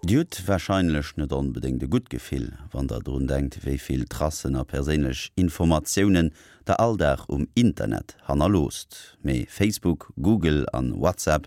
Dir hutt warscheinlech net onbedéngt e gutt Gefill, wann der drun denkt, wéi vill Tracen a perséinlech Informatiounen der all Dag um Internet hannerloosst. Mee Facebook, Google an WhatsApp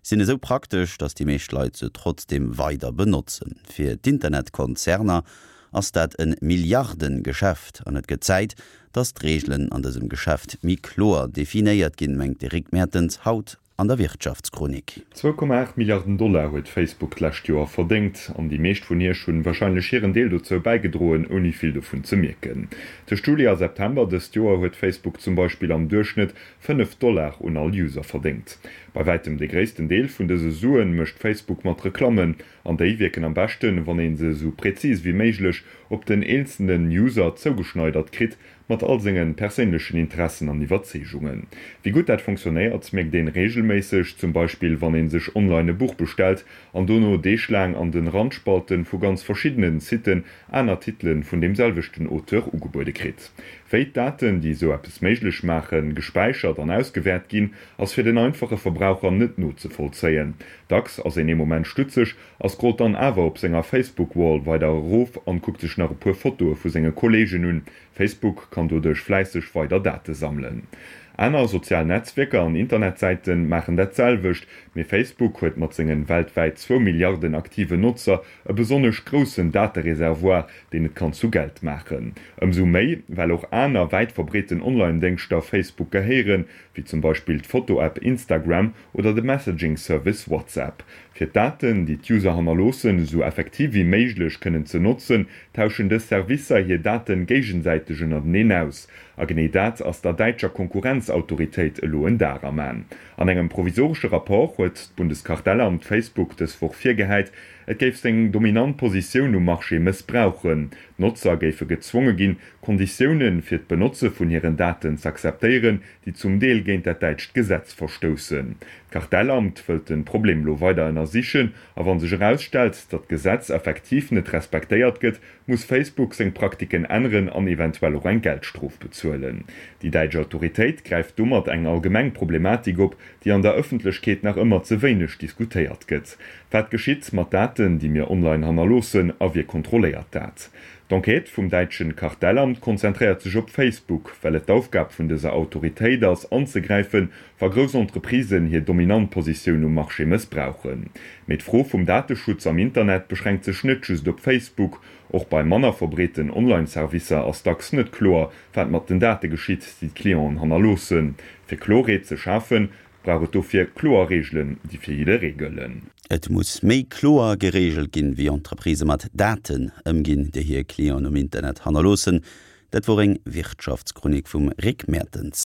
sinn esou praktesch, datt déi meescht Leit se trotzdeem weider benotzen. Fir d'Internetkonzerner ass dat e Milliardengeschäft an et gëtt Zäit, datt d'Reegelen an dësem Geschäft méi kloer definéiert ginn, mengt de Rick Mertens haut an der Wirtschaftschronik. 2,8 Milliarden Dollar huet Facebook d'lescht Joer verdéngt, an déi meescht vun iech hunn warscheinlech hiren Deel dozou bäigedroen, ouni vill dovun ze mierken. Tëscht Juli a September dëst Joer huet Facebook zum Beispill am Duerchschnëtt 5 Dollar un all User verdéngt. Bei wäitem de gréissten Deel vun dëse Suen mécht Facebook mat Reklammen, an déi wierken am beschten, wann een se esou präzis wéi méiglech op den eenzelnen User zougeschneidert kritt, Mat all sengen perséinlechen Interessen an Iwwerzeegungen. Wéi gutt dat fonctionnéiert, mierkt een regelméisseg, zum Beispill wann een sech online e Buch bestellt an dono Deeg laang an den Randspalten vu ganz verschiddenen Siten aner Titelen vun deem selwechten Auteur ugebuede kritt. Wéi d'Daten, déi esou eppes méiglech maachen, gespäichert an ausgewäert ginn, ass fir den einfache Verbraucher net nozevollzéien. Dacks ass een ee Moment stutzeg a scrollt dann awer op senger Facebook-Wall weider erof an kuckt sech nach e puer Fotoe vu senge Kolleegen un. Facebook kann doduerch fläisseg weider Date sammelen. Aner sozial Netzwierker an Internetsäite maachen dat selwecht, mee Facebook huet mat sengen weltwäit zwou Milliarden aktiven Notzer e besonnesch groussen Datereservoir, deen et kann zu Geld maachen. Ëmsou méi, well och aner wäit verbreeten Online-Déngschter Facebook gehéieren, wéi zum Beispill d'Foto-App Instagram oder de Messaging-Service WhatsApp. Fir d'Daten, déi d'User hannerloossen, esou effektiv wéi méiglech kënnen ze notzen, tauschen dës Servicer hir Daten géigesäiteg ënnerteneen aus. A genee dat ass der däitscher Konkurrenzautoritéit elo en Dar am An. An engem provisoresche Rapport huet d'Bundeskartellamt Facebook dës Woch virgehäit, et géif seng dominant Positioun um Marché mëssbrauchen. D'Notzer géife gezwonge ginn, Konditioune fir d'Benotze vun hiren Daten z'akzeptéieren, déi zum Deel géint dat däitscht Gesetz verstoussen. D'Kartellamt wëllt de Problem elo weider ënnersichen a wa sech erausstellt, datt d'Gesetz effektiv net respektéiert gëtt, muss Facebook seng Praktiken änneren an eventuell och eng Geldstrof bezuelen. Déi däitsch Autoritéit gräift domat eng allgemeng Problematik op, déi an der Ëffentlechkeet nach ëmmer ze wéineg diskutéiert gëtt. Wat geschitt mat Daten, déi mir online hannerloossen a wie kontrolléiert dat? D'Enquête vum däitschen Kartellamt konzentréiert sech op Facebook, well et d'Aufgab vun dëser Autoritéit ass, anzegräifen, wa grouss Entreprisen hir dominant Positioun um Marché mëssbrauchen. Mee d'Fro vum Dateschutz am Internet beschränkt sech net just op Facebook. Och bei manner verbreeten Online-Servicer ass dacks net kloer, wat mat den Date geschitt, déi d'Clienten hannerloossen. Fir Klorheet ze schafen, Brauch et dofir kloer Reegelen, déi fir jidderee gëllen. Et muss méi kloer gereegelt ginn, wéi Entreprisë mat Daten ëmginn, déi hir Clienten um Internet hannerloossen. Dat wor eng Wirtschaftschronik vum Rick Mertens.